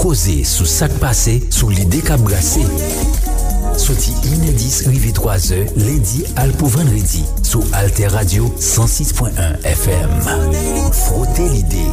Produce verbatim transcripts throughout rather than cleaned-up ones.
Koze sou sa k pase, sou lide k ap brase. Soti inè dis rive twazè, lendi al pou vandredi, sou Alter Radio san sis pwen en F M. Frote lide.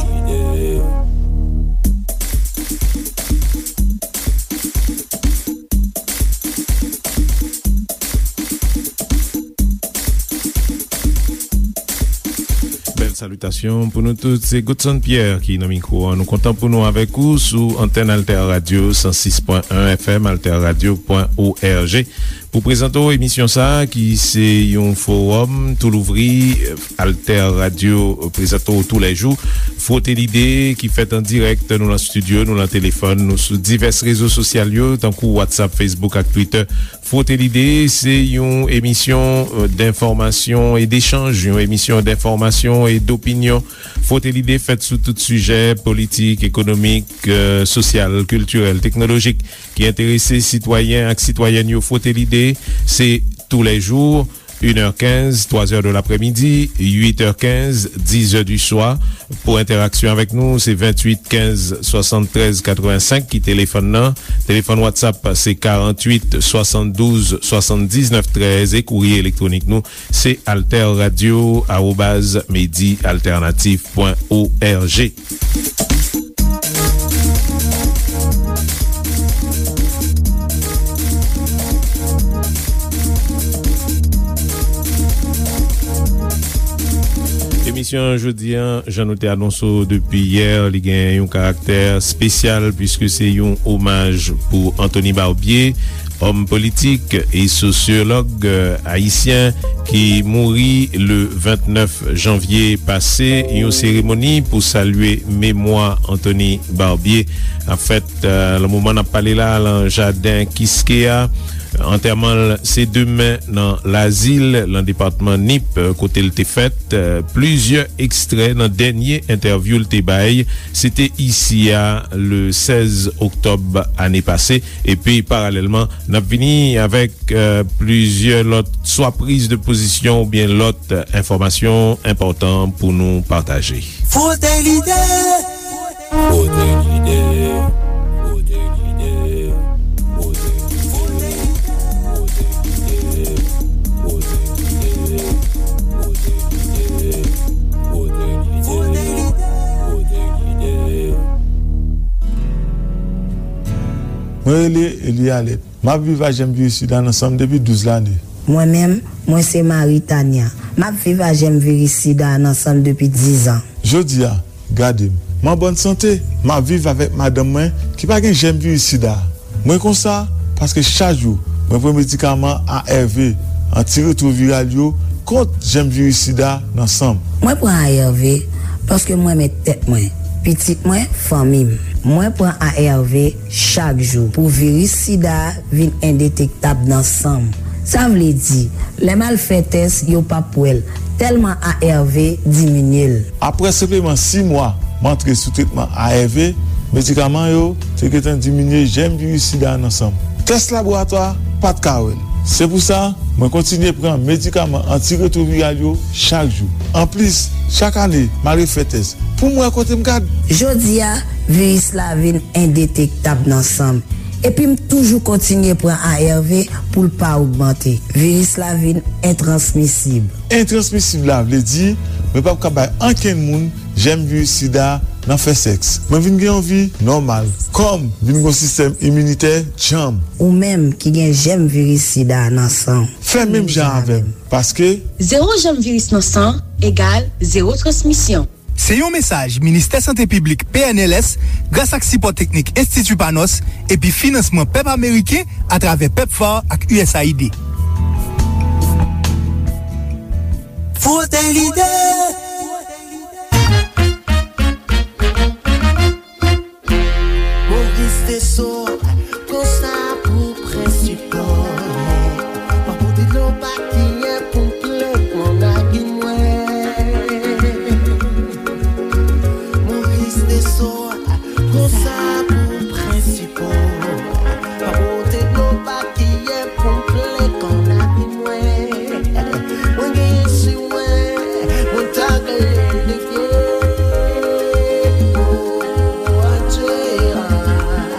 Bèl salitasyon pou nou tout. Se Godson Pierre ki nan mikwo an. Nou kontan pou nou avèk ou sou antèn Alter Radio san sis pwen en F M, alter radio pwen org. Pou prezante w emisyon sa a, ki se yon fowòm tou louvri, Alter Radio prezante w toulèjou. Frote lide ki fèt an dirèk, nou nan estidyo, nou nan telefòn, nou sou divès rezo sosyal yo, tankou WhatsApp, Facebook ak Twitter. Frote lide, se yon emisyon, euh, d'information et d'échange, yon emisyon d'information et d'opinion. Frote lide fèt sou tout sijè politik, ekonomik, euh, sosyal, kiltirèl, teknolojik ki enterese sitwayen ak sitwayèn yo. Frote lide, se toulèjou, inè kenz, twazè de laprèmidi, uitè kenz, dizè di swa. Pou entèraksyon avèk nou, se venntuit kenz swasanntrèz katrevensenk ki telefòn nan. Telefòn WhatsApp, se karanntuit swasanndouz swasanndiznèf trèz, e kourye elektwonik nou, se alter radio arobaz medi alternatif pwen org. Emisyon jodi a, jan nou te anonse w depi yè, li gen yon karaktè espesyal, piske se yon omaj pou Anthony Barbier, òm politik e sosyològ, euh, ayisyen ki mouri le vennèf janvye pase. Yon seremoni pou salye memwa Anthony Barbier ap fèt, euh, nan moman n ap pale la, nan jaden Kiskeya. Antèman l se demen nan Lazil, nan depatman Nip, kote l te fèt. Plizyè ekstrè nan dènye entèvyou l te bay, se te isi a, le sèz oktòb ane pase. Epi, paralèlman, n ap vini avèk, euh, plizyè lòt swa priz de pozisyon oubyen lòt, euh, enfòmasyon enpòtan pou nou pataje. Frote lide! Frote lide, frote lide, frote lide, frote lide, frote lide, frote lide, frote lide, frote lide. Mwen rele Eli Alèt. M ap viv ak jèm viris sida nan san m depi douz lane. Mwen menm, mwen se Marie Tania. M ap viv ak jèm viris sida nan san m depi diz an. Jodi a, gade m. M an bòn sante. M ap viv avèk madanm mwen ki pa gen jèm viris sida. Mwen konsa paske chak jou mwen pran medikaman A R V, antiretwoviral yo, kont jèm viris sida nan san m. Mwen pran A R V paske m renmen tèt mwen, pitit mwen, fanmi m. Mwen pran A R V chak jou pou viris sida a vin endetektab nan san m. Sa vle di, lè m al fè tès, yo p ap wè l, tèlman A R V diminye l. Apre senpleman sis mwa m antre sou tretman A R V, medikaman yo te gentan diminye jèm viris sida a nan san m. Tès laboratwa pa t ka wè l. Se pou sa, mwen kontinye pran medikaman antiretwoviral yo chak jou. Anplis, chak ane, m al refè tès pou m wè kote m gad. Jodi a, viris la vin endetektab nan san m. Epi m toujou kontinye pran A R V pou l pa ogmante. Viris la vin entransmisib. Entransmisib la vle di mwen p ap ka bay ankenn moun jèm viris sida nan fè sèks. Mwen vin gen yon vi nòmal. Kò m vin gen yon sistèm iminitè djanm. Ou menm ki gen jèm viris sida nan san w, fè menm jan avè m, paske zewo jèm viris nan san egal zewo transmisyon. Se yon mesaj Ministè Sante Piblik, P N L S, gras ak sipò teknik Enstiti Panos epi finansman pèp ameriken atravè pepfar ak U S A I D. Frote lide. Moris Desor, konsa pou prensipal. Pa pote dlo pa kiyen pou m plen nan nagin mwen. Moris Desor, konsa pou prensipal. Pa pote dlo pa kiyen pou m plen nan nagin mwen. Mwen genyen si mwen, mwen ta genyen de pye. Oh, adje, ah.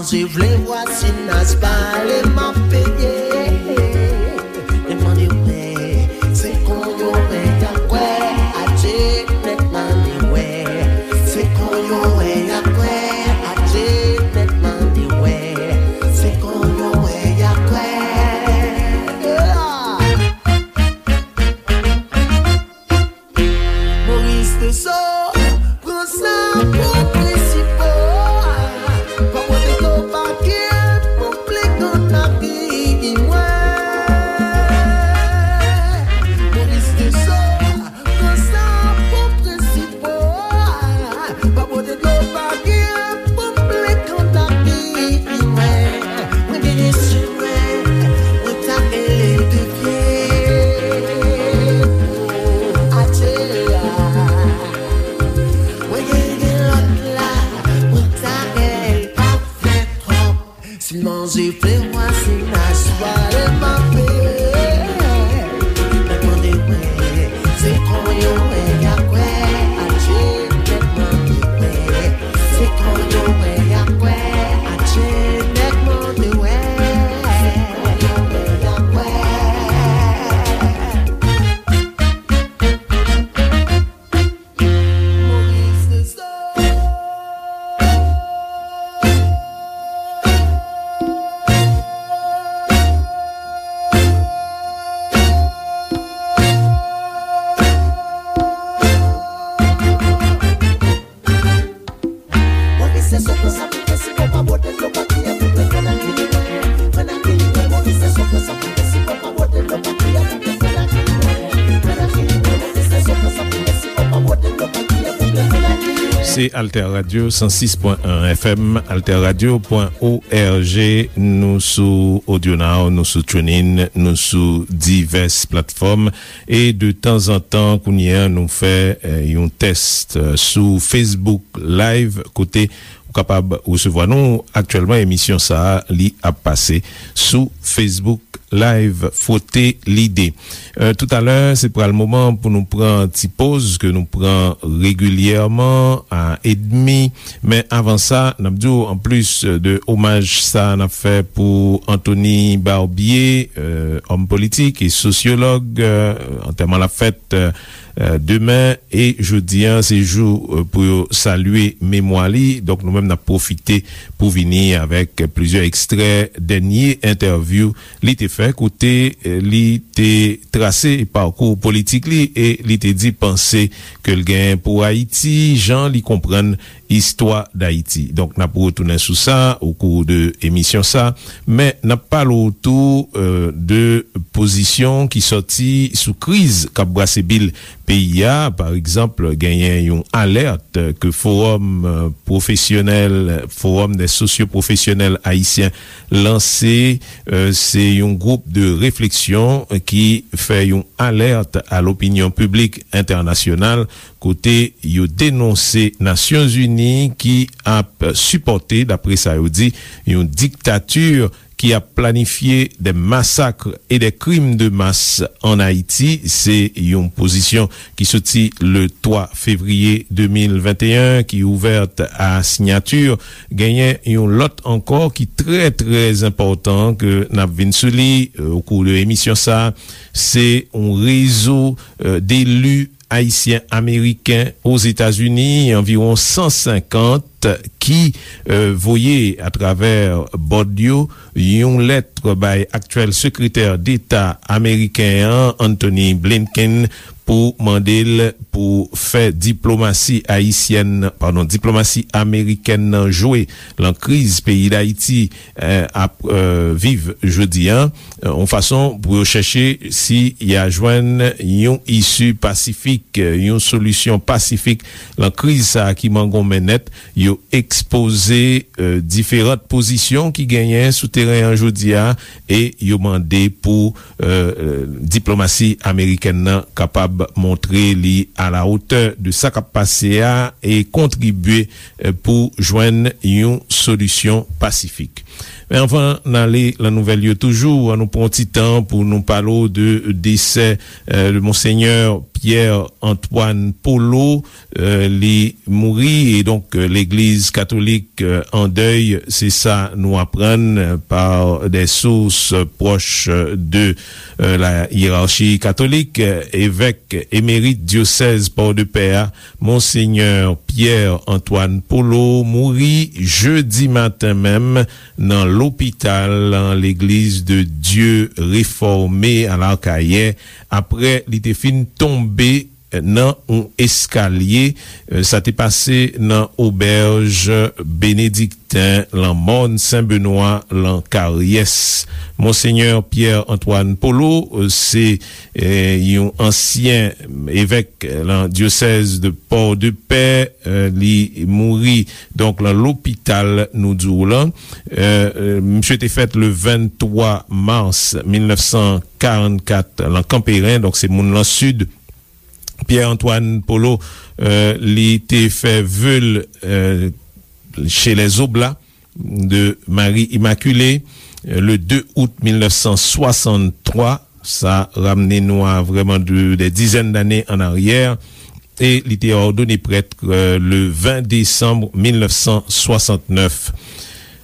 Si vle vwazinaj pale, m ap peye. Demande, wè, se konn yo wè y ap kwè. Adje nèg mande, wè, se konn yo wè y ap kwè. Adje nèg mande, wè, se konn yo wè y ap kwè. Moris Tresor, pran sa pou prensip ou. Pa pote dlo pa gen pou plenk an lavi mwen. Moris Tresor, pran sa pou prensip ou. Pa pote dlo pa gen pou plenk an lavi mwen. Mwen genyen sou mwen, mwen ta rele de pye pou atè a. Mwen genyen lòt la, mwen ta rele pa fè twòp. Si manje fle mwa, si nas pale mape. Mwen mande mwen, se konn yo wè y ap kwè. Atche nèg mande mwen, se konn yo wè y ap kwè. Atche nèg mande mwen, se konn yo wè y ap kwè. Se Alter Radio, san sis pwen en F M, alter radio pwen O R G. Nou sou AudioNow, nou sou TuneIn, nou sou divès platfòm. E de tanzantan, kounye a, nou fè, eh, yon tès, eh, sou Facebook Live, kote ou kapab resevwa nou. Aktyèlman, emisyon sa a, li ap pase sou Facebook Live, Fwote Lide. Eh, toutalè, se pral moman pou nou pran ti poz ke nou pran regilyèman a edmi. Men avan sa, n ap di w, anplis de omaj sa n ap fè pou Anthony Barbier, eh, òm politik e sosyològ, eh, antèman l ap fèt, eh, eh, demen, e jodi a, se jou, eh, pou yo salye memwa li. Donk, nou menm, n ap pwofite pou vini avèk plizyè ekstrè dènye entèvyou li te fè, kote, eh, li te trase pakou politik li e li te di panse ke l genyen pou Ayiti, jan li konprann istwa Dayiti. Donk, n ap retounen sou sa o kou de emisyon sa, men n ap pale w tou, eh, de pozisyon ki sòti sou kriz k ap brase bil peyi a. Pa egzanp, genyen yon alèt ke Forum, eh, Pwofesyonèl, Forum des Socioprofessionnels Haïtiens lanse. Eh, se yon gwoup de refleksyon ki fè yon alèt a lopinyon piblik entènasyonal, kote yo denonse Nasyonzini ki ap sipòte, dapre sa yo di, yon diktati ki ap planifye de masak e de krim de mas an Ayiti. Se yon pozisyon ki soti le twa fevriye de mil venteyen, ki ouvèt a siyati. Genyen yon lòt ankò ki trè, trè enpòtan ke n ap vin sou li, eh, o kou de emisyon sa. Se yon rezo, eh, deli ayisyen ameriken Ozetazini, anviwon san senkant, ki, eh, voye atravè bòd yo yon lèt bay aktyèl sekretè deta ameriken an, Antony Blinken, pou mande l pou fè diplomasi ayisyèn, padon, diplomasi amerikèn nan jwe lan kriz peyi Dayiti, eh, ap, eh, viv jodi a, eh, yon fason pou yo chèche si y a jwenn yon isi pasifik, eh, yon solisyon pasifik lan kriz sa a ki mangonmen nèt. Yo ekspoze, eh, diferan pozisyon ki genyen sou teren an jodi a e yo mande pou, eh, eh, diplomasi amerikèn nan kapab montre li a la otè de sa k ap pase a e kontribye, eh, pou jwenn yon solisyon pasifik. Men anvan n ale nan nouvèl yo toujou, an nou pran yon ti tan pou nou pale w de desè, eh, de Monsenyè Pierre Antoine Polo, eh, li mouri, e donk, eh, Legliz Katolik, eh, an dèy, se sa nou aprann, eh, par des sources proches de, eh, la hiérarchie catholique. Eh, evèk emerit dyosèz Pòdepè a, Monsenyè Pierre Antoine Polo mouri jedi maten menm nan lopital Legliz de Dye Refòme a Lakayè, apre li te fin tonbe nan yon eskalye. Sa te pase nan obèj Benedikten lan Mòn Sen Benwa lan Karyès. Monsenyè Pierre Antoine Polo, se, eh, yon ansyen evèk lan dyosèz de Pòdepè, eh, li mouri, donk, lan lopital, nou di w lan. Eh, eh, misye te fèt le venntwa mas mil nèf san karannkat lan Kanperen, donk, se moun lan Sid. Pierre Antoine Polo, eh, li te fè ve l, eh, chez les Oblats de Marie Immaculée, eh, le de out mil nèf san swasanntwa. Sa ramne nou a vrèman de, des dizaines d'années en arrière. E li te òdone prèt, eh, le ven desanm mil nèf san swasannnèf.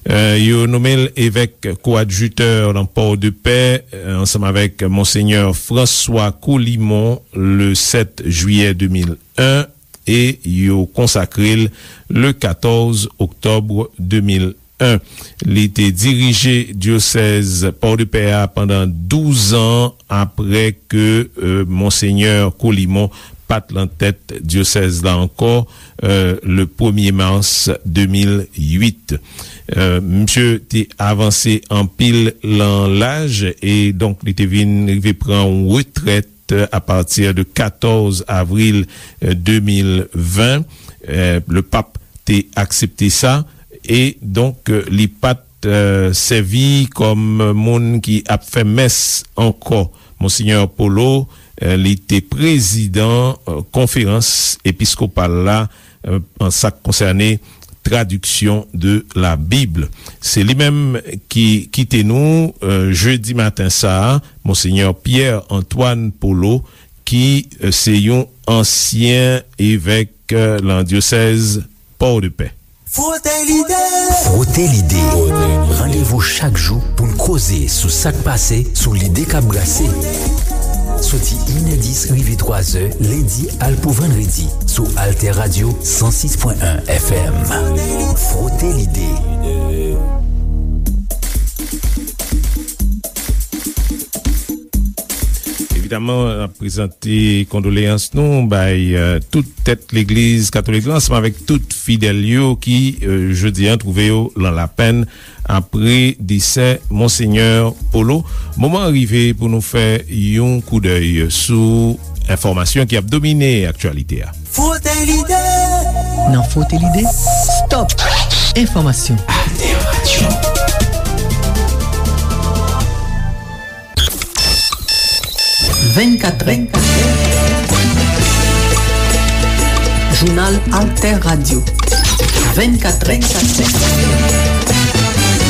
Eh, yo nonmen l evèk koadjitè lan Pòdepè, eh, ansanm avèk Monsenyè François Colimon, le sèt jiyè de mil en, e yo konsakre l le katòz oktòb de mil en. Li te dirije dyosèz Pòdepè a pandan douz an, apre ke, eh, Monsenyè Colimon pa t lan tèt dyosèz la ankò, eh, le premye mas de mil uit. Eh, misye te avanse anpil lan laj, e donk li te vin rive pran yon retrèt a pati de katòz avril, eh, de mil ven. Eh, le pap te aksepte sa, e donk, eh, li pa t, eh, sèvi kòm moun ki ap fè mès ankò. Monsenyè Polo, eh, li te prezidan, eh, konferans episkopal la, eh, an sa k konsène tradiksyon de la Bib. Se li menm ki kite nou, eh, jedi maten sa a, Monsenyè Pierre Antoine Polo, ki, eh, se yon ansyen evèk, eh, lan dyosèz Pòdepè. Frote Lide. Frote Lide. Randevou chak jou pou n koze sou sa k pase, sou lide k ap brase. Soti inè dis rive twazè, lendi al pou vandredi, sou Alter Radio san sis pwen en F M. Frote Lide. Evidaman, n ap prezante kondoleyans nou bay, eh, tout tèt Legliz Katolik la, ansanm avèk tout fidèl yo ki, eh, jodi a, twouve yo lan lapenn apre desè Monsenyè Polo. Moman an rive pou nou fè yon koudèy sou enfòmasyon ki ap domine aktyalite a. Frote Lide. Nan Frote Lide, stop enfòmasyon. Alter Radio. Vennkat, vennkat. Jounal Alter Radio. Vennkat, vennkat.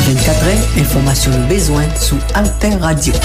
Vennkat, enfòmasyon nou bezwen sou Alter Radio.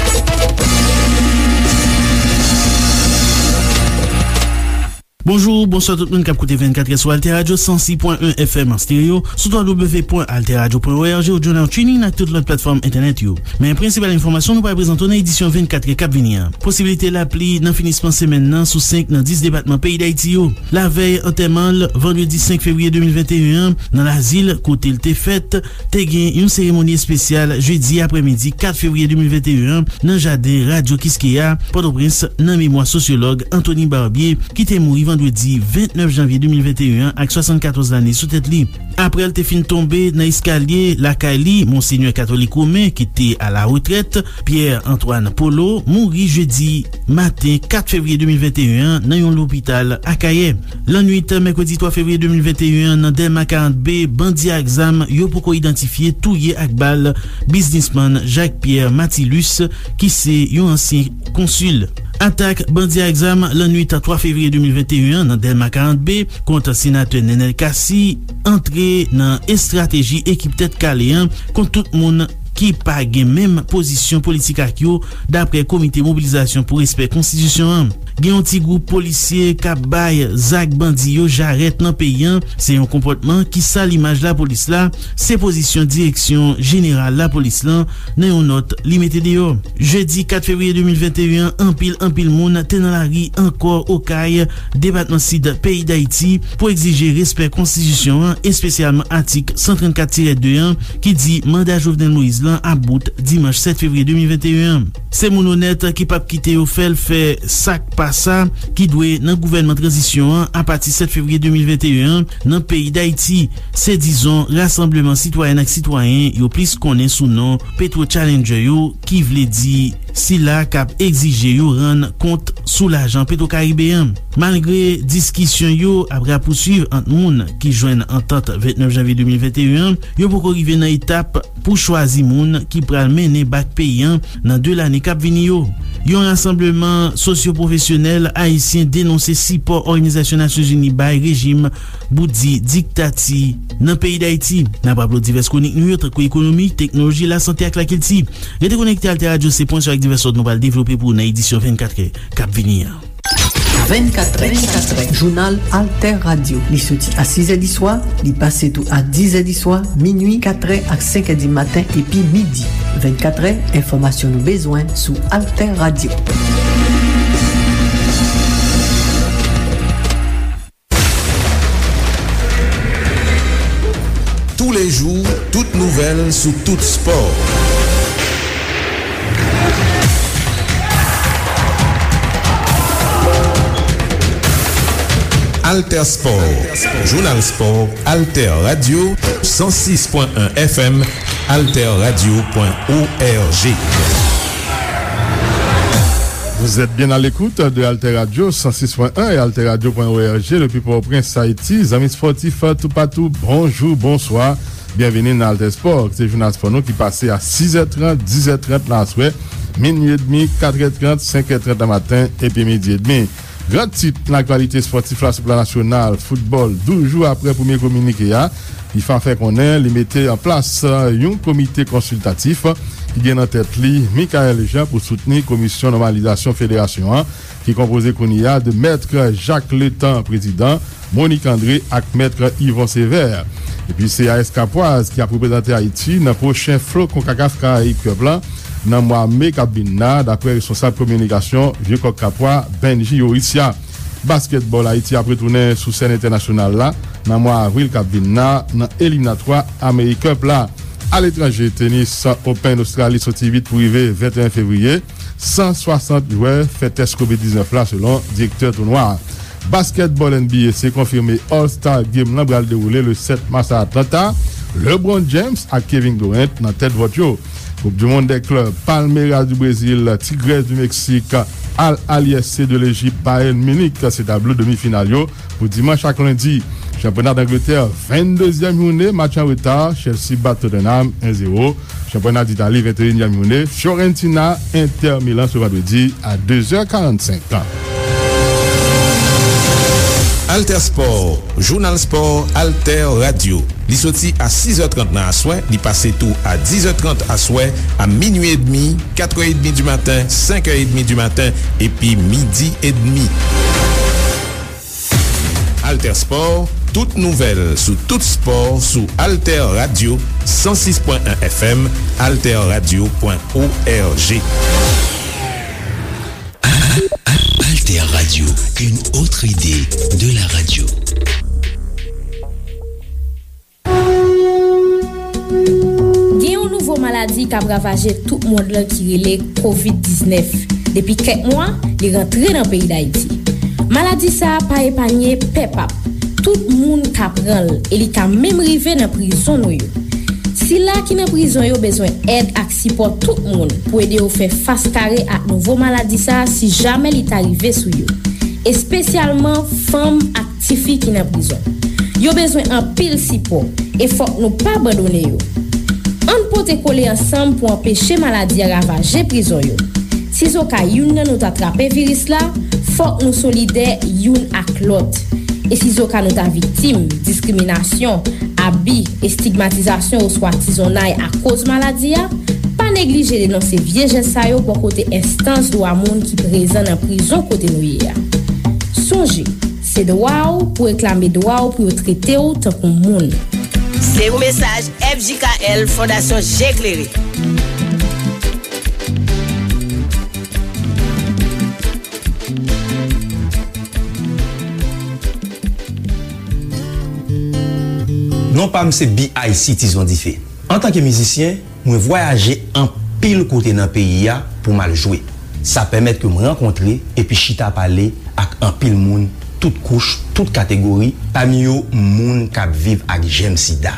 Bonjou, bonswa tout moun k ap koute vennkat sou Alter Radio san sis pwen en F M an stereo, sou w w w pwen alter radio pwen o r g, ou jounal TuneIn ak tout lòt platfòm entènèt yo. Men prensipal enfòmasyon nou pral prezante w nan edisyon vennkat k ap vini an. Posiblite lapli nan finisman semèn nan sou senk nan dis depatman peyi Dayiti yo. Lavèy antèman l, vandredi senk fevriye de mil venteyen an, nan Lazil, kote l te fèt, te gen yon seremoni espesyal jedi aprèmidi kat fevriye de mil venteyen an, nan jaden Radyo Kiskeya, Pòtoprens, nan memwa sosyològ Anthony Barbier, ki te mouri vandredi vennèf janvye de mil venteyen an ak swasannkatòz lane sou tèt li. Apre l te fin tonbe nan eskalye lakay li, Monsenyè Katolik Women, ki te alaretrèt, Pierre Antoine Polo, mouri jedi maten kat fevriye de mil venteyen an nan yon lopital Akayè. Lannwit mèkredi twa fevriye de mil venteyen an, nan Dèlma karant B, bandi ak zam yo poko idantifye touye ak bal biznismann Jacques Pierre Matilus, ki se yon ansyen konsil. Atak bandi ak zam lannwit twa fevriye de mil venteyen an nan Dèlma karant B kont senatè Nenel Cassy antre nan estrateji ekip Tèt Kale an kont tout moun ki pa gen menm pozisyon politik ak yo, dapre Komite Mobilizasyon pou Respè Konstitisyon an. Gen yon ti gwoup polisye k ap bay zak bandi yo jarèt nan peyi a. Se yon konpòtman ki sal imaj lapolis la, se pozisyon Direksyon Jeneral Lapolis lan nan yon nòt li mete deyò. Jedi kat fevriye de mil venteyen an, anpil, anpil moun te nan lari ankò Okay, depatman Sid peyi Dayiti, pou egzije respè konstitisyon an, espesyalman atik san trannkat tirè de an, ki di manda Jovenel Moïse lan ap bout dimanch sèt fevriye de mil venteyen an. Se moun onèt ki p ap kite yo fè l fè sa k pa sa, ki dwe nan gouvènman tranzisyon an apati sèt fevriye de mil venteyen an nan peyi Dayiti. Se, dizon, rasanbleman sitwayèn ak sitwayen yo plis konnen sou non Petro Challenger yo, ki vle di sila k ap egzije yo rann kont sou lajan Petwokaribe an. Malgre diskisyon yo ap rapousuiv ant moun ki jwenn antant vennèf janvye de mil venteyen an, yo poko rive nan etap pou chwazi moun ki pral mennen bak peyi an nan de lane k ap vini yo. Yon rasanbleman sosyopwofesyonèl ayisyen denonse sipò Òganizasyon Nasyonzini bay rejim bout di diktati nan peyi Dayiti. N ap raple w divès kwonik nou yo, tankou ekonomi, teknoloji, lasante ak lakilti. Rete konekte Alter Radio, se pwen sou ak divès lòt nou pral devlope pou ou nan edisyon vennkatrè k ap vini an. Vennkatrè, vennkatrè, jounal Alter Radio. Li soti a sizè di swa, li pase tou a dizè di swa, minui, katrè ak senkè di maten, epi midi. Vennkatrè, enfòmasyon nou bezwen sou Alter Radio. Tous les jours, toute nouvelle sous tout sport. Alter Sport, Jounal Spò, Alter Radio, san sis pwen en F M, alterradio pwen org. Vous êtes bien à l'écoute de Alter Radio cent six point un et alterradio point org depuis Port-au-Prince, Haïti. Zanmi spòtif toupatou, bonjou, bonswa. Byenvini nan Alter Sport. Se jounal spò nou ki pase a sis è trant, dis è trant nan aswè, minui edmi, kat è trant, senk è trant nan maten, epi midi edmi. Gran tit nan aktyalite spòtif la sou plan nasyonal, foutbòl, douz jou apre premye kominike a, fifa fè konnen li mete an plas, euh, yon komite konsiltatif ki gen nan tèt li Michaël Jean pou soutni komisyon nòmalizasyon federasyon an, ki konpoze kounye a de Mèt Jacques Letan, prezidan, Monique André ak Mèt Yvon Sévère. Epi se A S Kapwaz ki ap reprezante Ayiti nan pwochen flo Konkakaf Karayib Cup la nan mwa me k ap vin la, dapre responsab kominikasyon Vye Kòk Kapwa, Benji Yorissia. Baskètbòl, Ayiti ap retounen sou sèn entènasyonal la nan mwa avril k ap vin la nan eliminatwa AmeriCup la. Aletranje, tenis, Open Ostrali soti uit pou rive venteyen fevriye. San swasant jwè fè tès kovid diznèf la, selon direktè tounwa a. Baskètbòl N B A, se konfime All Star Game lan pral dewoule le sèt mas a Atlanta. LeBron James ak Kevin Durant nan tèt vòt yo. Coupe du monde des clubs, Palmeiras du Brésil, Tigres du Mexique, Al Ahly S C de Lejip, Bayern Munich, se tablo demi final yo pou dimanch ak lendi. Chanpyona Dangletè, venndezyèm jounen, match an reta, Chelsea bat Tottenham en zewo. Chanpyona Ditali, venteyinyèm jounen, Fiorentina, Inter Milan se vandredi a de zè karannsenk. Alter Sport, jounal spò, Alter Radio. Li soti a sis è trant nan aswè, li pase tou a dis è trant aswè, a minui edmi, kat è edmi di maten, senk è edmi di maten, epi midi edmi. Alter Sport, tout nouvèl sou tout spò sou Alter Radio, san sis pwen en F M, alterradio pwen org. Alter Radio, une autre idée de la radio. Gen yon nouvo maladi k ap ravaje tout mond lan ki rele kovid diznèf. Depi kèk mwa, li rantre nan peyi Dayiti. Maladi sa a pa epanye pèp ap. Tout moun ka pran l e li ka menm rive nan prizon nou yo. Sila ki nan prizon yo bezwen èd ak sipò tout moun pou ede yo fè fas kare ak nouvo maladi sa a si jamè li ta rive sou yo, espesyalman fanm ak tifi ki nan prizon. Yo bezwen anpil sipò, e fòk nou pa abandone yo. Ann pote kole ansanm pou anpeche maladi a ravaje prizon yo. Sizoka youn nan nou ta trape viris la, fòk nou solidè youn ak lòt. E sizoka nou ta viktim diskriminasyon, abi, estigmatizasyon oswa tizonnay akoz maladi a, pa neglije denonse vye jès sa yo bò kote enstans dwa moun ki prezan nan prizon kote nou ye a. Sonje, se dwa w pou w reklame dwa w pou yo trete w tankou moun. Se yon mesaj F J K L, Fondasyon Je Klere. Non pa m se B I C Tizon Dife. Antanke mizisyen, mwen vwayaje anpil kote nan peyi a pou m al jwe. Sa pèmèt ke m rankontre epi chita pale ak anpil moun, tout kouch, tout kategori, pami yo moun k ap viv ak jèm sida.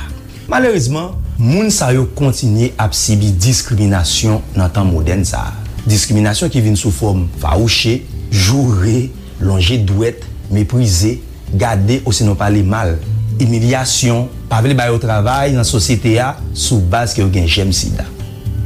Malerezman, moun sa yo kontinye ap sibi diskriminasyon nan tan modèn sa a. Diskriminasyon ki vin sou fòm fawouche, joure, lonje dwèt, meprize, gade osinon pale mal, imilyasyon, pa vle ba yo travay nan sosyete a sou baz ke yo gen jèm sida.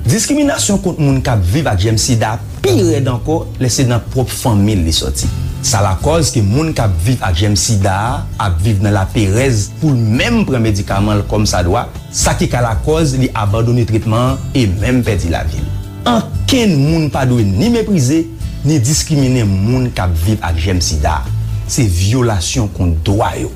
Diskriminasyon kont moun k ap viv ak jèm sida pi rèd ankò lè se nan pwòp fanmi l li sòti. Sa lakòz ke moun k ap viv ak jèm sida a ap viv nan laperèz pou l menm pran medikaman l kòmsadwa, sa ki ka lakòz li abandone tretman an e menm pèdi lavi l. Ankenn moun pa dwe ni meprize, ni diskriminen moun k ap viv ak jèm sida. Se vyolasyon kont dwa yo.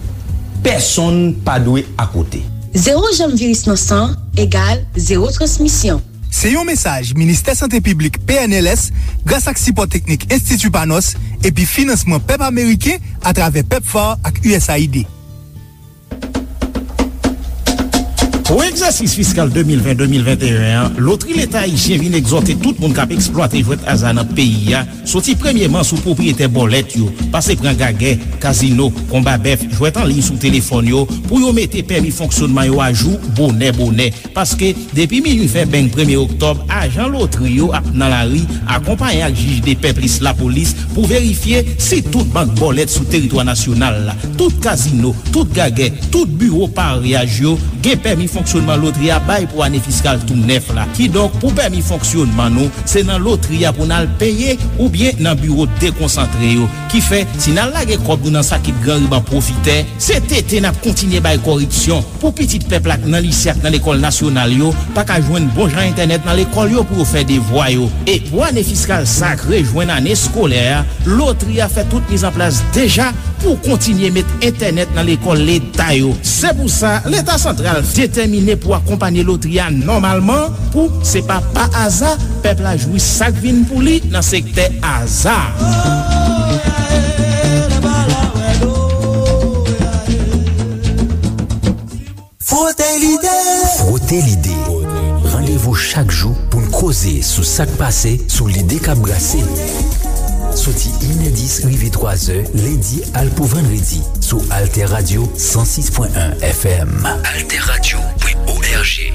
Pèsonn pa dwe akote. Zewo janm viris nan san egal zewo transmisyon. Se yon mesaj Ministè Sante Piblik, P N L S, gras ak sipò teknik Enstiti Panos epi finansman pèp ameriken atravè pepfar ak U S A I D. Pou egzèsis fiskal de mil ven, de mil venteyen an, Lotri Leta Ayisyen vin egzòte tout moun k ap eksplwate jwèt aza nan peyi a, soti premye mars sou pwopriyetè bòlèt yo, pase pran gagè, kazino, konba bèf, jwèt an liy sou telefòn yo, pou yo mete pèmi fonksyonman yo ajou bonè bonè. Paske, depi minui fè beng premye oktòb, ajan lotri yo ap nan lari, akonpaye ak jij depè plis lapolis, pou verifye si tout bank bòlèt sou teritwa nasyonal la, tout kazino, tout gagè, tout biwo pareyaj yo gen pèmi fonksyonman lotri a bay pou ane fiskal tou nèf la. Kidonk, pou pèmi fonksyonman nou, se nan lotri a pou n al peye oubyen nan biwo dekonsantre yo. Kifè, si n al lage kòb nou nan sakit gran riban pwofitè, se tete n ap kontinye bay kòripsyon. Pou pitit pèp la k nan lise ak nan lekòl nasyonal yo pa ka jwenn bon jan entènèt nan lekòl yo pou yo fè devwa yo. E pou ane fiskal sa k rejwenn ane eskolè a, lotri a fè tout mizanplas deja pou kontinye met entènèt nan lekòl leta yo. Se pou sa, Leta santral detèmine pou akonpanye lotri a nòmalman, pou se pa pa aza pèp la jwi sa k vin pou li nan sektè aza. Frote lide. Frote lide. Randevou chak jou pou n koze sou sa k pase, sou lide k ap brase. Soti inè dis rive twazè, lendi al pou vandredi, sou Alter Radio san sis pwen en F M. Alter Radio pwen O R G.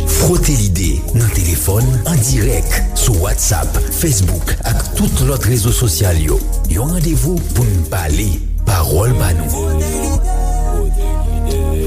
Frote lide nan telefòn, an dirèk, sou WhatsApp, Facebook ak tout lòt rezo sosyal yo. Yon randevou pou n pale, pawòl ba nou.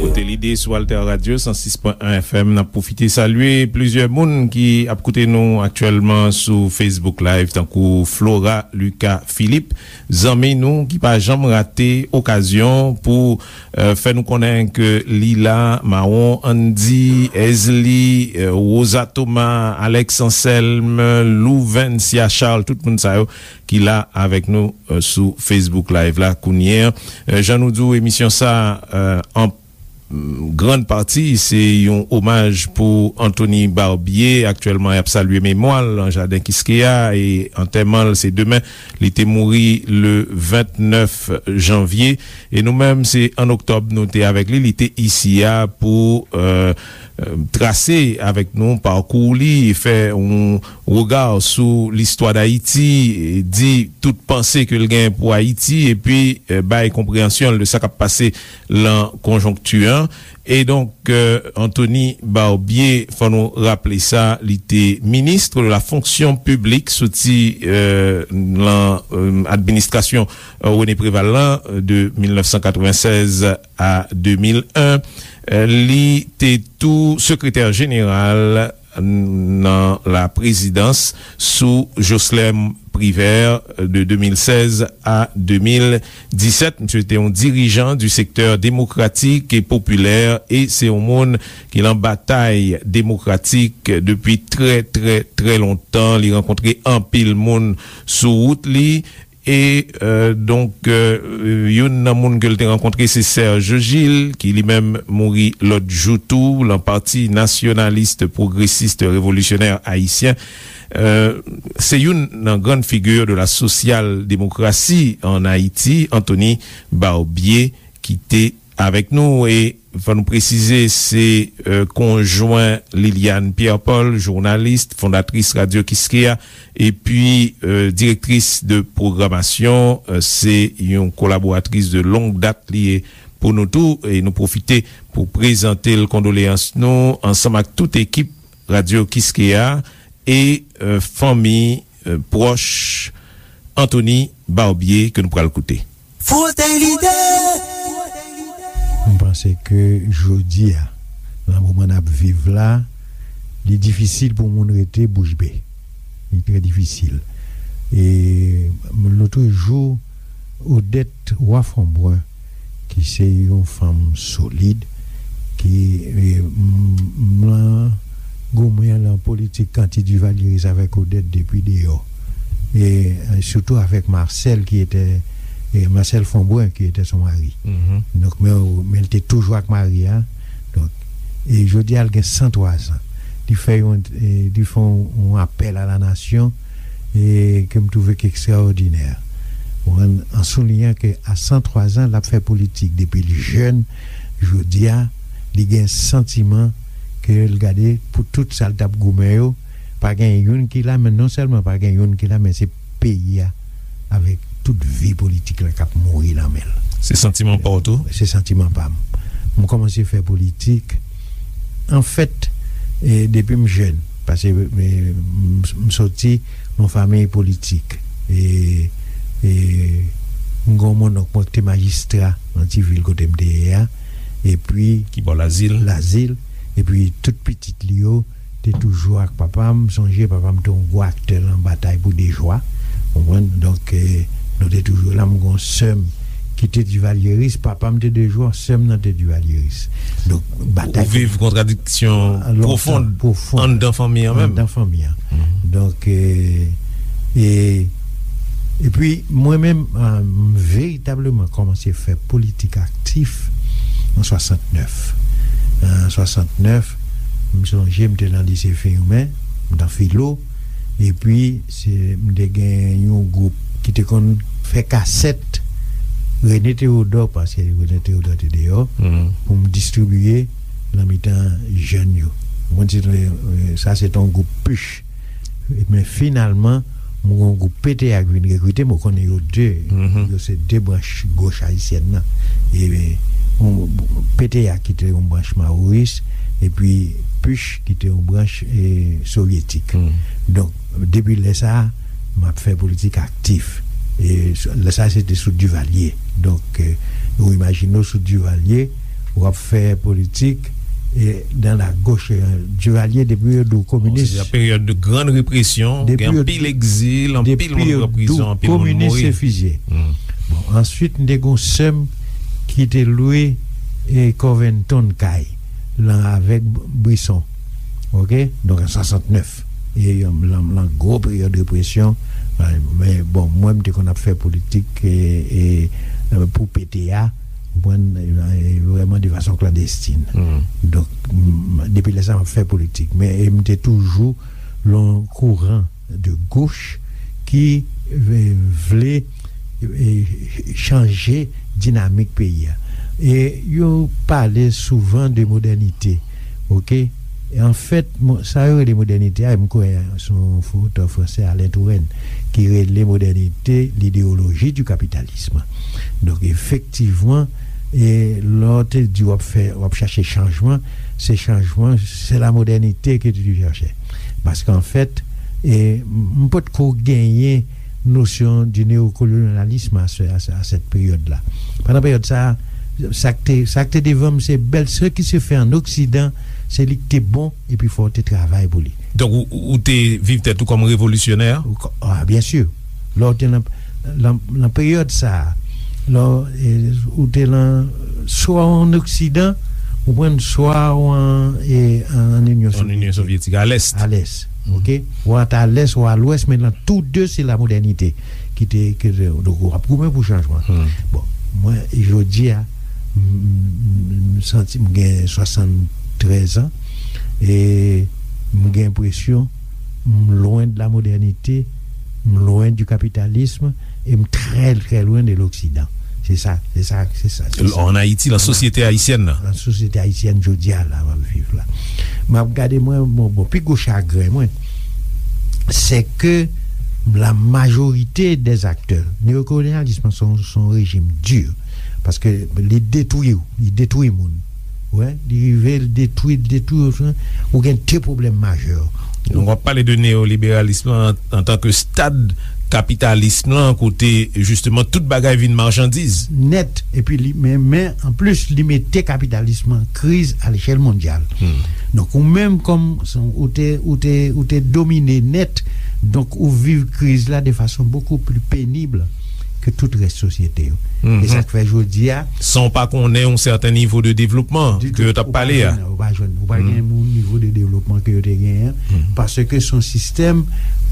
Frote lide sou Alter Radio san sis pwen en F M. N ap pwofite salye plizyè moun ki ap koute nou aktyèlman sou Facebook Live, tankou Flora Lucas Philippe, zanmi nou ki pa janm rate okazyon pou, eh, fè nou konnen ke li la, Mawon Andy, Ezli, eh, Rosa Thomas, Alex Anselme, Louvencia Charles, tout moun sa yo ki la avèk nou, eh, sou Facebook Live la kounye a. Eh, jan nou di w, emisyon sa, eh, an, mm, grann pati, se yon omaj pou Anthony Barbier. Aktyèlman, y ap salye memwa l nan jaden Kiskeya e antèman l se demen. Li te mouri le vennèf janvye. E nou menm, se an oktòb nou te avèk li. Li te isi a pou, eh, eh, trase avèk nou pakou li, fè yon rega sou listwa Dayiti, di tout panse ke l gen pou Ayiti, epi, eh, bay konpreyansyon l de sa k ap pase lan konjonkti an. E donk, eh, Anthony Barbier, fò nou raple sa, li te ministre de la fonction publique soti, eh, lan, eh, administrasyon, eh, René Préval lan, eh, de mil nèf san katrevennsèz a de mil en. Eh, li te tou sekretè jeneral nan la prezidans sou Joslèm Privert de de mil sèz a de mil disèt. Misye te yon dirijan du sektè demokratik e popilè e se yon moun ki lan batay demokratik depi trè, trè, trè lontan. Li rankontre anpil moun sou wout li. E, euh, donk, euh, youn nan moun ke l te rankontre, se Serge Gilles, ki li menm mouri lòt jou tou, lan Pati Nasyonalis Pwogresis Revolisyonè Ayisyen. Euh, se youn nan grann figi de la sosyal demokrasi an Ayiti, Anthony Barbier, ki te avèk nou. E fò nou presize, se, euh, konjwen Liliane Pierre-Paul, jounalis, fondatris Radyo Kiskeya, epi, euh, direktris de pwogramasyon, euh, se yon kolaboratris de long dat li ye pou nou tou, e nou pwofite pou prezante l kondoleyans nou ansanm ak tout ekip Radyo Kiskeya e, euh, fanmi, euh, pwòch Anthony Barbier ke nou pral koute. Frote Lide! M panse ke jodi a, nan moman n ap viv la, li difisil pou moun rete bouch be. Li trè difisil. E lòt jou, Odette Roy Fombrun, ki se yon fanm solid, ki, e, m, m lan goumen lan politik anti-Duvalieris avèk Odette depi deyò. E, e sitou avèk Marcel, ki etè, e, Marcel Fombrun, ki etè son mari. Donk, men, men l te toujou ak mari a. Donk, e jodi a, l gen san twa zan. Li fè yon, e, li fè yon, yon apèl a la nasyon, e ke m twouve ki ekstraòdinè. Ou konprann? An souliyan ke a san twa zan, l ap fè politik depi l jèn. Jodi a, li gen santiman ke l gade pou tout sa l t ap goumen yo, pa gen youn ki la, men non sèlman pa gen youn ki la, men se peyi a avèk tout vi politik la k ap mouri nan men l. Se santiman pa w tou? Se santiman pa m. M kòmanse fè politik. Anfèt, e, depi m jèn, paske, e, m, m soti nan fanmi politik. E, e, m gen yon monnonk mwen ki te majistra nan ti vil kote m te ye a. Epi ki bò Lazil? Lazil. Epi tout pitit li yo te toujou ak papa m. M sonje papa m te yon gwo aktè nan batay pou Dejwa. Ou konprann? Donk, e, nou te toujou la. M gen yon sè m ki te divalyeris. Papa m te Dejwa, sè m nan te divalyeris. Donk, batay. Ou viv kontradiksyon pwofon anndan fanmi an menm. Anndan fanmi an. Donk, e, e, epi, mwen menm, e, m veritableman kòmanse fè politik aktif an swasantnèf. An swasantnèf, m sonje m te nan lise Firmin, m t an filo, epi se, m te gen yon gwoup ki te konn fè kasèt René Théodore, paske René Théodore te deyò, pou m distribiye nan mitan jèn yo. Mwen di, e, sa se te yon gwoup Puch. Men finalman, mwen gen yon gwoup P T A ki vin rekrite m, ou konnen yo de, yo se de branch goch ayisyèn nan. E, yon, P T A ki te yon branch maworis, epi Puch ki te yon branch, e, sovyetik. Donk, depi lè sa a, m ap fè politik aktif. E, lè sa a, se te sou Duvalier. Donk, e, ou imajine w sou Duvalier, w ap fè politik, e, dans la gauche, e, Duvalier, depi yo di w kominis. Bon, se te yon peryòd de grande répression, gen anpil egzil, anpil moun pran prizon, anpil moun mouri. Kominis se fizye. Bon, answit, m te gen yon sè m ki te lwe, e, Covington kay, lan avèk Brisson. Oke? Donk, an swasantnèf. E, lan, lan gwo peryòd represyon, e, men, bon, mwen, m te konn ap fè politik, e, e, e, pou P T A, ou konprann, e, e, vrèman de fason klandestin. Donk, m, depi lè sa, m ap fè politik. Men, e, m te toujou lan kouran de gauche ki, e, vle, e, chanje dinamik peyi a. E yo pale souvan de modènite, oke? E anfèt, mo-, sa yo rele modènite a, m kwè se yon otè fransè, Alain Touraine, ki rele modènite l'idéologie du capitalisme. Donk, efektivman, e lè w te di w ap fè, w ap chache chanjman, se chanjman, c'est la modernité que tu cherches. Paske anfèt, e, m, m potko genyen nosyon di neokolonyalism a se, a se, a sèt peryòd la. Pandan peryòd sa a, sa k te, sa k te devan m, se bèl, ce qui se fait en Occident, se li k te bon, epi fò w te travay pou li. Donk, ou, ou, ou te viv tèt ou kòm revolisyonè? Ou ko-, a, byen si. Lè w te nan, nan, nan peryòd sa a, lè w, e, ou te nan, swa w ann Oksidan, ou konprann, swa w an, e, ann Inyon Sovyètik, a lès. A lès, oke? Ou ant a lès ou a lwès, men nan tou de, se lamodènite ki te, ki te, donk, w ap goumen pou chanjman. Bon, mwen, jodi a, m, m, m santi m gen swasanntrèz an, e m gen enpresyon m lwen de la modènite, m lwen du capitalisme, e m trè, trè lwen de l'Occident. Se sa, se sa, se sa, se sa. An Ayiti, nan sosyete ayisyèn nan. Nan sosyete ayisyèn jodi a la, m ap viv la. M ap gade mwen, bon, bon, pi gwo chagren mwen, se ke la majorité des acteurs, neokolonyalisme se yon, se yon rejim di, paske li detwi w, li detwi moun. Wè, li rive, li detwi, li detwi, ou gen de pwoblèm majè. Donk, w ap pale de neyoliberalism lan an, antanke stad kapitalism lan, kote, jisteman, tout bagay vin machandiz. Nèt, epi li, men, men, anplis, li mete kapitalism lan an kriz a lechèl mondyal. Donk, ou menm kòm, ou te, ou te, ou te domine nèt, donk, ou viv kriz la de fason bokou pli penib ke tout rès sosyete yo. E sa k fè jodi a, san w pa konnen yon sèten nivo de devlopman ke yo t ap pale a. Ou pa jwenn, ou pa jwenn, ou pa gen yon nivo de devlopman ke yo te genyen, paske se yon sistèm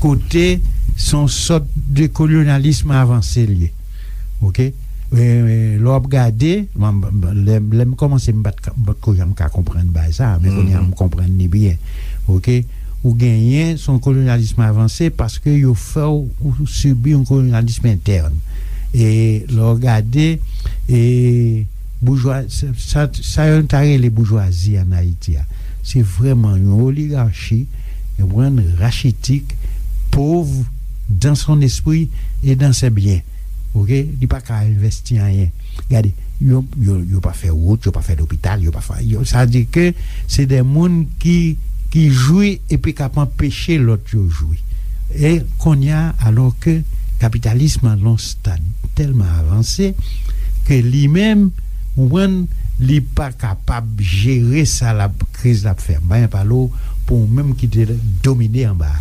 kote se yon sòt de kolonyalism avanse l ye. Oke? E, e, lè w ap gade, m, m, lè, lè m kòmanse, m pa t ka, m pa t ko janm ka konprann bagay sa, men kounye a m konprann li byen. Oke? Ou genyen, se yon kolonyalism avanse paske yo fè w, ou sibi yon kolonyalism entèn. E lè w gade, e boujwa, sa, sa, sa yo ta rele boujwazi an Ayiti a, se vrèman yon oligachi, yon brand rachitik, pov dans son esprit et dans ses biens. Oke? Li pa ka envèsti anyen. Gade, yo, yo, yo pa fè wout, yo pa fè lopital, yo pa fè, yo, sa di ke se de moun ki, ki jwi epi k ap anpeche lòt yo jwi. E kounye a, alò ke kapitalism an nan yon stad tèlman avanse ke li menm, ou konprann, li pa kapab jere sa l ap, kriz l ap fè. M pa gen pale w pou ou menm ki te domine anba a.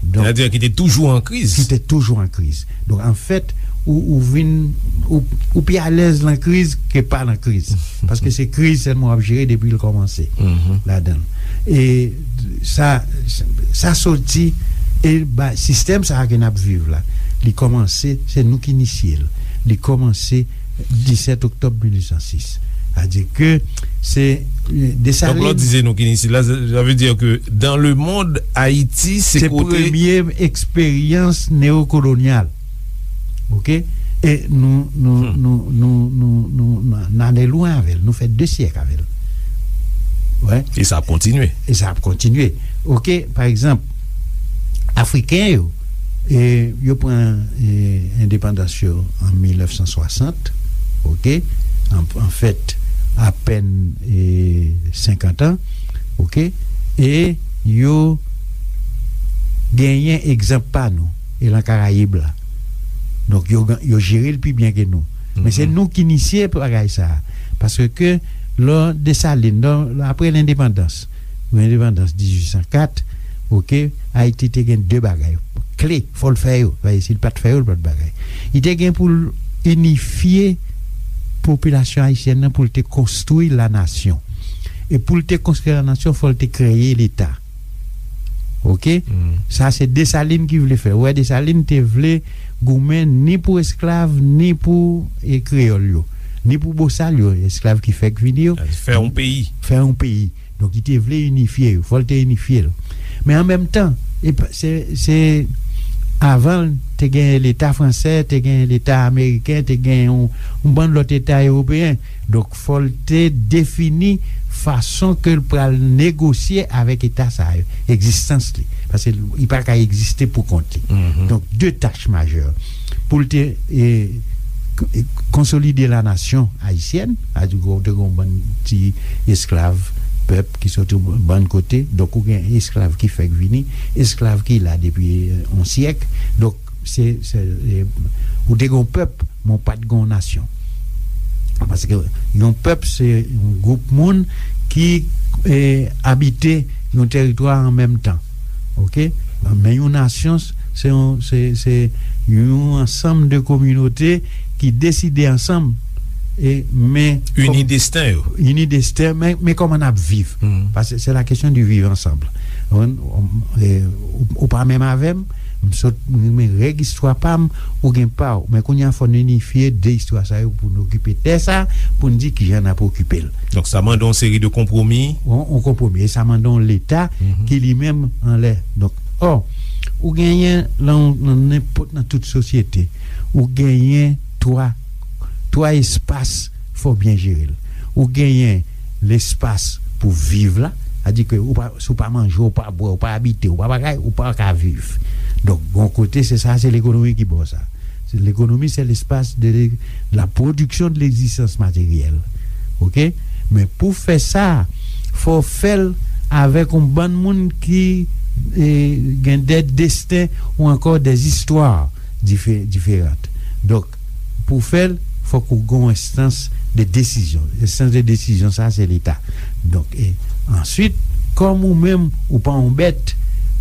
Donk, sètadi ki te toujou an kriz. Ki te toujou an kriz. Donk, anfèt, ou, ou vin, ou, ou pi alèz nan kriz ke pa nan kriz. Paske se kriz sèlman w ap jere depi l kòmanse ladan l. E sa, sa soti, e ba, sistèm sa a ke n ap viv la, li kòmanse, se nou ki inisye l. Li kòmanse disèt oktòb mil uit san sis. Sètadi ke se, e, Desalin. Donk, lè w di se nou ki inisye l la, sa, sa vle di ke dans le monde, Ayiti, se kote premye eksperyans neokolonyal. Oke? E nou, nou, nou, nou, nou, nou, nou, n ale lwen avè l. Nou fè de syèk avè l. Wè. E sa ap kontinye. E sa ap kontinye. Oke? Pa egzanp, Afriken yo, e, yo pran, e, endepandans yo an mil nèf san swasant, oke? An, anfèt, apèn, e, senkant an, oke? E yo genyen egzanp pa nou, e lan Karayib la. Donk, yo, yo jere l pi byen ke nou. Men se nou ki inisye bagay sa a. Paske lè Desalin, lè, apre lendepandans, lendepandans dizuit san kat, oke, Ayiti te gen de bagay kle, fò l fè yo. Paske si l pa t fè yo, l pa t bagay. Li te gen pou l inifye popilasyon ayisyèn nan, pou l te konstwi lanasyon. E pou l te konstwi lanasyon, fò l te kreye Leta. Oke? Sa se Desalin ki vle fè. Ou wè, Desalin te vle goumen ni pou esklav, ni pou, e, kreyòl yo, ni pou bosal yo, esklav ki fèk vini yo. Fè yon peyi. Fè yon peyi. Donk, li te vle inifye yo. Fò l te inifye l. Men an menm tan, e pa, se, se avan l, te gen Leta fransè, te gen Leta ameriken, te gen yon, yon bann lòt Leta ewopeyen. Donk, fò l te defini fason ke l pral negosye avèk Eta sa yo, egzistans li. Paske li pa ka egziste pou kont li. Donk, de tach majè. Pou l te, e, k-, e, konsolide lanasyon ayisyèn, sètadi ou te gen yon bann ti esklav, pèp ki soti yon bann kote, donk ou gen esklav ki fèk vini, esklav ki la depi, e, yon syèk. Donk, se, se, e, ou te gen yon pèp, men w pa t gen yon nasyon. Paske yon pèp, se yon gwoup moun ki, e, abite yon tèritwa an menm tan. Oke? Men yon nasyon, Se yon, se, se yon ansanm de kominote ki deside ansanm, e, men ini desten yo. Ini desten, men, men kòman n ap viv. Paske se la kesyon di viv ansanm. Ou, ou, e, ou, ou pa menm avè m, m sot, men règ istwa pa m, ou gen pa w. Men kounye a, fò n inifye de istwa sa yo pou n okipe tè sa, pou n di kijan n ap okipe l. Donk, sa mande yon seri de konpwomi. Yon, yon konpwomi. E sa mande yon Leta ki li menm anlè. Donk, ò, ou genyen lan, lan nenpòt, nan tout sosyete, ou genyen twa, twa espas, fò w byen jere l. Ou genyen lespas pou viv la, sa di ke ou pa, si w pa manje, ou pa bwè, ou pa abite, ou pa bagay, ou pa ka viv. Donk, yon kote, se sa, se lekonomi ki ba w sa. Se, lekonomi, se lespas de, de la production de l'existence matérielle. Oke? Men pou fè sa, fò w fè l avèk yon bann moun ki, e, gen de desten ou ankò de zistwa dife-, diferan. Donk, pou w fè l, fòk ou gen yon enstans de desizyon. Enstans de desizyon sa, se Leta. Donk, e, answit, kòm ou menm, ou pa yon bèt,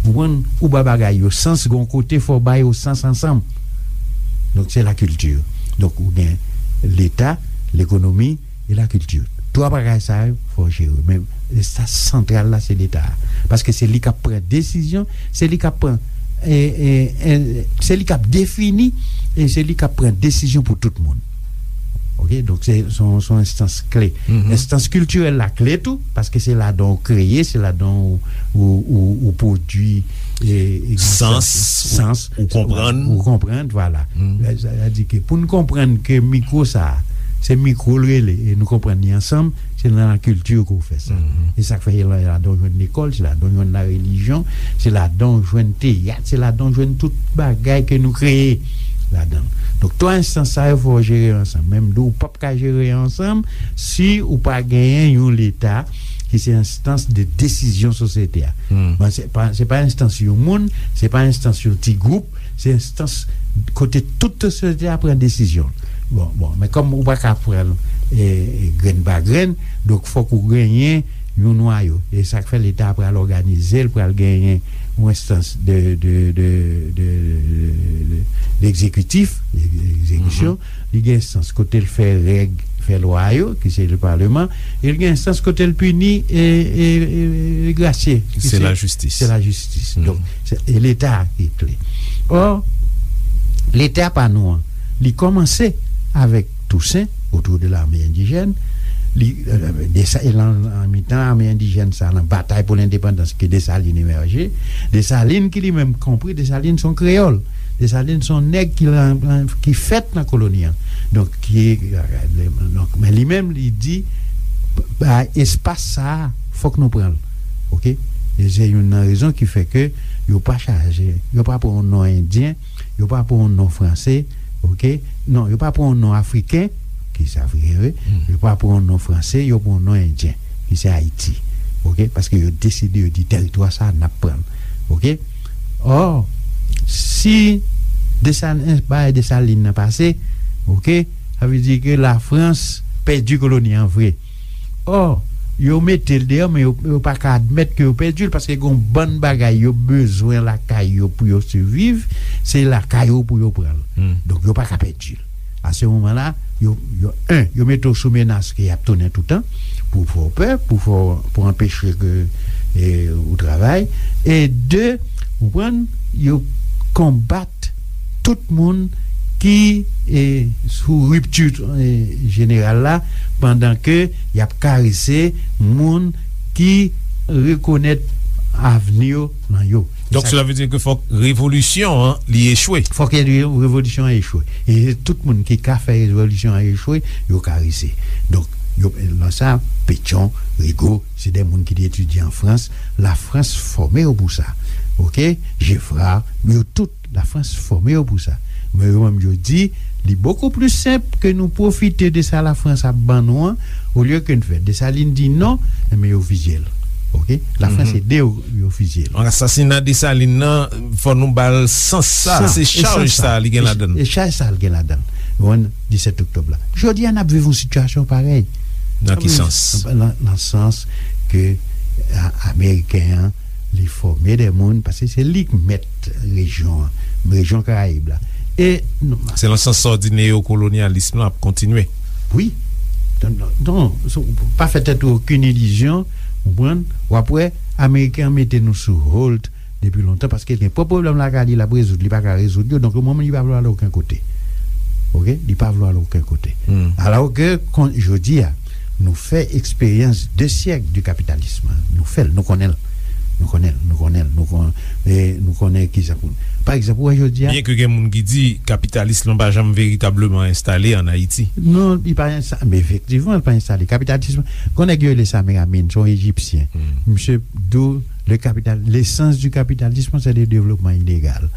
ou konprann, ou ba bagay yo sans, gen yon kote fò w ba yo sans ansanm. Donk, se lakilti. Donk, ou gen Leta, lekonomi e lakilti. Twa bagay sa yo, fò w jere. Men, sa santral la, se Leta a. Paske se li k ap pran desizyon, se li k ap pran, e, e, e, se li k ap defini, e se li k ap pran desizyon pou tout moun. Oke? Donk, se, se yon, se yon enstans kle. Enstans kiltirèl la kle tou, paske se ladan w kreye, se ladan w, w, w, w pwodui, e, egzistans ou, sans, ou konprann. Ou konprann, vwala. Sa, sa di ke pou n konprann ke mikwo sa a, se mikwo l rele, e nou konprann li ansanm, se nan lakilti ke w fè sa. E sa k fè se la, ladan w jwenn lekòl, se ladan w jwenn larelijyon, se ladan w jwenn teyat, se ladan w jwenn tout bagay ke nou kreye ladan l. Donk, twa enstans sa yo fò w jere yo ansanm. Men m di w, ou p ap ka jere yo ansanm si ou pa genyen yon Leta ki se enstans de desizyon sosyete a. Bon, se pa, se pa enstans yon moun, se pa enstans yon ti gwoup, se enstans kote tout sosyete a pran desizyon. Bon, bon, men kòm ou pa ka pran l, e, e, grenn pa grenn, donk fòk ou genyen yon nwayo. E sa k fè Leta a pral òganize l, pral genyen yon enstans de, de, de, de, de, de egzekitif, egzekisyon, li gen enstans kote l fè règ, fè lwa yo, ki se le Parlement, e l gen enstans kote l pini, e, e, e, e grasye, ki se lajistis. Se lajistis. Donk, se, e Leta a ki kle. Ò, Leta pa nou an, li kòmanse avèk Toussaint, autour de l'armée indigène, li, e, de sa, e lan, lan mitan ame endijèn sa, lan batay pou lendepandans ke Desalin emèje, Desalin ki li menm konpri, Desalin se yon kreyòl. Desalin se yon nèg ki lan, lan, ki fèt nan koloni an. Donk, ki, donk, men li menm, li di, ba, espas sa a, fòk nou pran l. Oke? E se youn nan rezon ki fè ke yo pa chaje, yo pa pran yon non endyen, yo pa pran yon non franse, oke? Non, yo pa pran yon non afriken, ki se afriken vre, yo pa pran yon non franse, yo pran yon non endyen, ki se Ayiti. Oke? Paske yo deside, yo di, tèritwa sa a, n ap pran l. Oke? Ò, si Desalin, bagay Desalin nan pase, oke, sa vle di ke Lafrans pèdi koloni an vre. Ò, yo mete l deyò, men yo, yo pa ka admèt ke yo pèdi l, paske gen yon bann bagay yo bezwen lakay yo pou yo siviv, se lakay yo pou yo pran l. Donk, yo pa ka pèdi l. A se moman la, yo, yo, en, yo mete w sou menas ke y ap tounen toutan, pou fè w pè, pou fè w, pou anpeche ke, e, ou travay. E de, ou konprann, yo konbat tout moun ki, e, sou ripti, e, jeneral la, pandan ke y ap karese moun ki rekonèt avni yo nan yo. Donk, sela vle di ke fòk revolisyon an, li echwe. Fòk revolisyon an echwe. E tout moun ki ka fè revolisyon an echwe, yo karese. Donk, yo, lan sa, Pétion, Rigaud, se de moun ki te etidye an Frans. Lafrans fòme yo pou sa. Oke? Geffrard, yo tout, Lafrans fòme yo pou sa. Men yo menm, yo di, li bokou pli senp ke nou pwofite de sa Lafrans ap ban nou an, olye ke n fè. Desalin di non, enben yo fizye l. Oke? Lafrans ede yo, yo fizye l. Asasina Desalin nan, fò nou ba l sans sa, se chaj sa li gen ladan l. E chaj sa l gen ladan l. Ou konprann, disèt oktòb la. Jodi a, n ap viv yon sitiyasyon parèy. Nan ki sans? Nan, nan sans ke, a, Ameriken an, li fòme de moun, paske se li k mèt rejyon an, rejyon Karayib la. E nou, se nan sans sa w di neyokolonyalism lan ap kontinye. Wi. Non, non, non, so, pa fè tèt ou okenn ilizyon, konprann? W ap wè, Ameriken an mete nou sou hold depi lontan, paske l gen pwòp pwoblèm lakay li, l ap rezoud, li pa ka rezoud yo, donk, yon moman, li pa vle al okenn kote. Oke? Li pa vle al okenn kote. Alò ke, kon, jodi a, nou fè eksperyans de syèk de kapitalism. Nou fè l, nou konnen l. Nou konnen l, nou konnen l, nou konnen, e nou konnen ki sa pou. Pa egzanp, ou wè jodi a. Byen ke gen moun ki di kapitalism lan pa janm veritableman enstale ann Ayiti. Non, li pa enstale, men efektivman, li pa enstale. Kapitalism, gon nèg yo rele Samir Amin, se yon Ejipsyen. Misye di w, le capital, l'essence du capitalisme, c'est le développement inégal.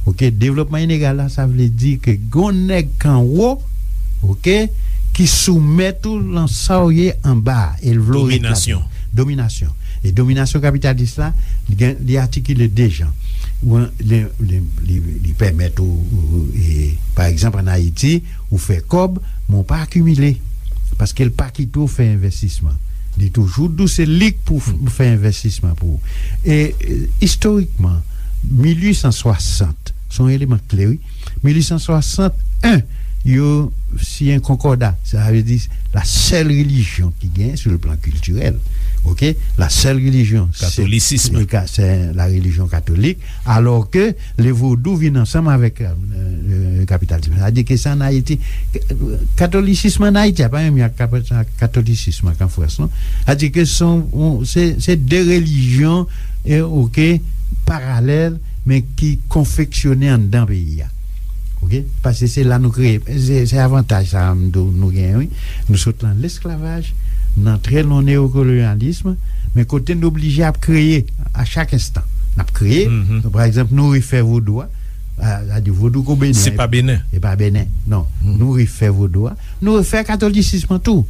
Oke, devlopman inegal la, sa vle di ke gon nèg k anwo, oke, ki soumèt ou lan sa w ye anba a, e l vle w retabli. Dominasyon. Dominasyon. E dominasyon kapitalis la, li gen, li atikile de jan. Ou an, li, li, li, li pèmèt ou, ou, e, pa egzanp, ann Ayiti, ou fè kòb, men ou pa akimile. Paske l pa kite w fè envèstisman. Li toujou di w se li k pou f-, fè envèstisman pou ou. E, e, istorikman, mil uit san swasant, se yon eleman kle, wi. Mil uit san swasant en, yo siyen konkòda. Sa vle di, la seule religion ki gen sur le plan culturel, oke? La seule religion, se, katolisism. Se ka-, se la religion catholique. Alò ke le vodou vin ansanm avèk, euh, euh, kapitalism. Sa di ke sa ann Ayiti, katolisism ann Ayiti a pa menm jan ak kap-, katolisism ak an Frans, non. Sa di ke se, se, se de relijyon, e, oke, paralèl, men ki konfeksyone anndan peyi a. Oke? Paske se la nou kreye. Se, se avantaj sa a m di w nou genyen, wi. Nou sot lan lesklavaj, n antre lan neyokolonyalism, men kote n oblije ap kreye a chak enstan. N ap kreye, pa egzanp, nou refè vodou a, a, sa di vodou ko Benen. Se pa Benen. E pa Benen, non. Nou refè vodou a. Nou refè katolisism an tou.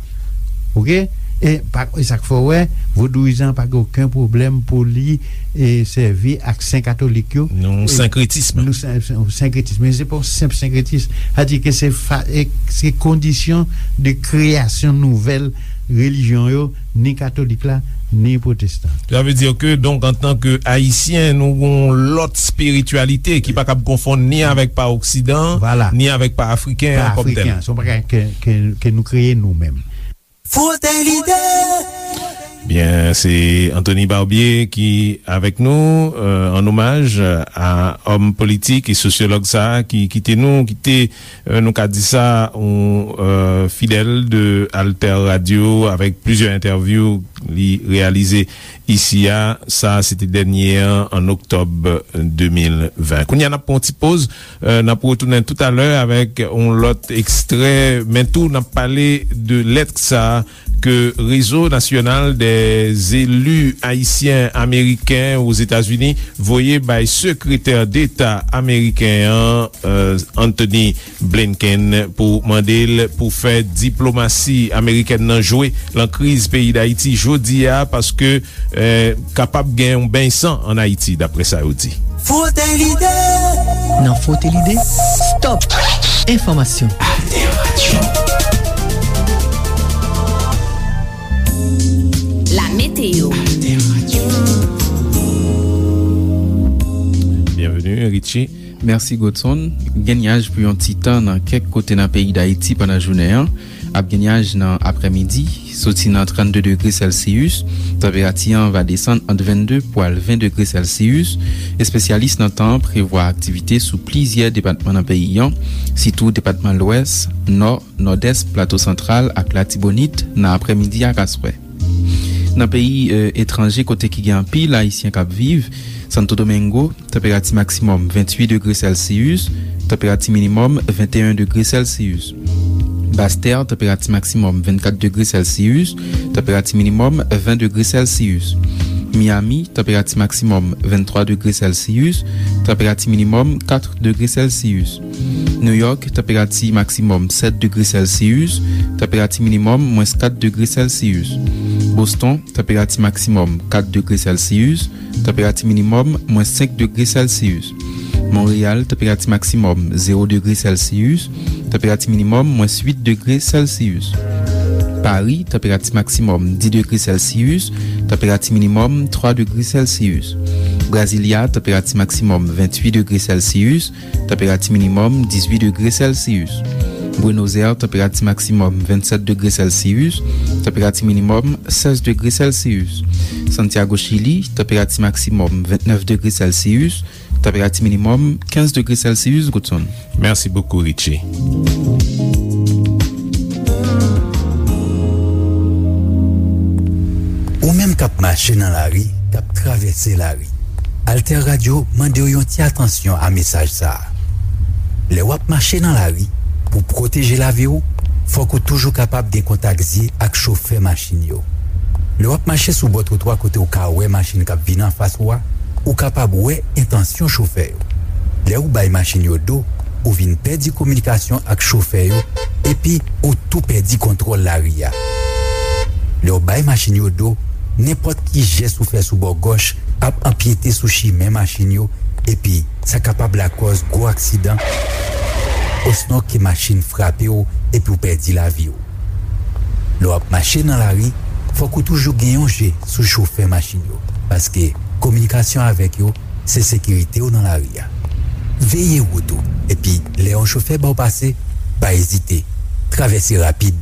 Oke? E pa, e sa k fè w wè, vodouyizan pa gen okenn pwoblèm pou li, e, sèvi ak sen katolik yo. Non, e, senkretism. Nou sen-, sen-, senkretism. Men se pa yon senp senkretis. Sa di ke se fa-, e, se kondisyon de kreyasyon nouvèl relijyon yo, ni katolik la, ni pwotestan. Sa vle di ke, donk, antanke Ayisyen, nou gon lòt espirityalite ki pa kab konfonn ni avèk pa oksidan, ni avèk pa afriken an kòm tèl. Pa afriken an, se yon bagay ke, ke, ke nou kreye nou menm. Frote lide! Byen, se Anthony Barbier ki avèk nou, euh, an omaj a òm politik e sosyològ sa a ki kite nou, ki te, euh, nou ka di sa, yon, euh, fidèl de Alter Radio avèk plizyè entèvyou li reyalize isi a. Sa a, se te dènye an, an oktòb de mil ven. Kounye a, n ap pran yon ti poz. Euh, n ap retounen toutalè avèk yon lòt ekstrè, men tou n ap pale de lèt sa ke Réseau National des Élus Haïtiens Américains aux États-Unis voye bay Sekretè Deta ameriken an, euh, Anthony Blinken, pou mande l pou fè diplomasi amerikèn nan jwe lan kriz peyi Dayiti jodi a, paske eh, kapab gen yon beny san ann Ayiti, daprè sa yo di. Frote lide! Nan Frote lide, stop! Enfòmasyon. Alter Radio. La météo. Alter Radio. Byenveni, Richie. Mèsi, Godson. Gen nyaj pou yon ti tan nan kèk kote nan peyi Dayiti pandan jounen an. Ap gen nyaj nan aprèmidi, soti nan trannde degre sèlsiyis, tanperati an va desann ant vennde pou al ven degre sèlsiyis. Espesyalis nan tan an prevwa aktivite sou plizyè depatman nan peyi an, sitou depatman Lwès, Nò, Nòdès, Plato Santral ak Latibonit nan aprèmidi ak aswè. Nan peyi, e, etranje kote ki gen anpil Ayisyen k ap viv, Santo Domingo, tanperati maksimòm venntuit degre sèlsiyis, tanperati minimòm venteyen degre sèlsiyis. Bastè, tanperati maksimòm vennkat degre sèlsiyis, tanperati minimòm ven degre sèlsiyis. Miami, tanperati maksimòm venntwa degre sèlsiyis, tanperati minimòm kat degre sèlsiyis. Nouyòk, tanperati maksimòm sèt degre sèlsiyis, tanperati minimòm mwens kat degre sèlsiyis. Boston, tanperati maksimòm kat degre sèlsiyis, tanperati minimòm mwens senk degre sèlsiyis. Monreyal, tanperati maksimòm zewo degre sèlsiyis, tanperati minimòm mwens uit degre sèlsiyis. Pari, tanperati maksimòm dis degre Celsius, tanperati minimòm twa degre Celsius. Brasilia, tanperati maksimòm venntuit degre Celsius, tanperati minimòm dizuit degre Celsius. Buenos Aires, tanperati maksimòm vennsèt degre Celsius, tanperati minimòm sèz degre Celsius. Santiago, Chili, tanperati maksimòm vennèf degre Celsius, tanperati minimòm kenz degre Celsius, Goodson. Merci beaucoup, Richie. Ou menm k ap mache nan lari, k ap travèse lari, Alter Radio mande w yon ti atansyon a mesaj sa a. Lè w ap mache nan lari, pou pwoteje lavi w, fòk ou toujou kapab gen kontak zye ak chofè machin yo. Lè w ap mache sou bò twotwa kote w ka wè machin k ap vin anfas ou a, ou kapab wè entansyon chofè yo. Lè ou bay machin yo do, ou vin pèdi kominikasyon ak chofè yo, epi ou tou pèdi kontwòl lari a. Lè w bay machin yo do, nenpòt ki jès ou fè sou bò gòch ap anpyete sou chimen machin yo, epi sa kapab lakòz gwo aksidan, osnon ke machin frape w epi w pèdi lavi w. Lè w ap mache nan lari, fòk ou toujou gen yon je sou chofè machin yo, paske kominikasyon avèk yo se sekirite w nan lari a. Veye wout ou, epi lè yon chofè ba w pase, pa ezite, travèse rapid.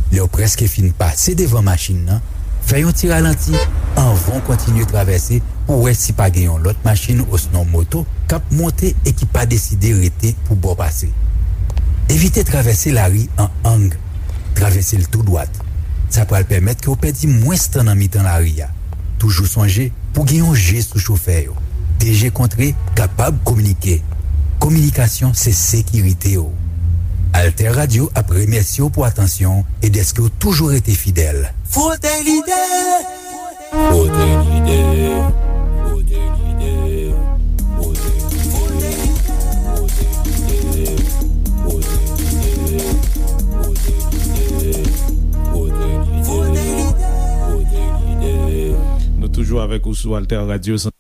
Lè w prèske fin pase devan machin nan, fè yon ti ralanti anvan w kontinye travèse pou w wè si pa gen yon lòt machin osnon moto k ap monte e ki pa deside rete pou ba w pase. Evite travèse lari an ang. Travèse l tou dwat. Sa pral pèmèt ke w pèdi mwens tan nan mitan lari a. Toujou sonje, pou gen yon je sou chofè yo. De je kontre kapab kominike. Kominikasyon se sekirite w. Alter Radio ap remèsye w pou atansyon w e dèske w toujou rete fidèl. Frote lide! Frote lide! Frote lide! Frote lide! Frote lide! Frote lide! Nou toujou avèk ou sou Alter Radio.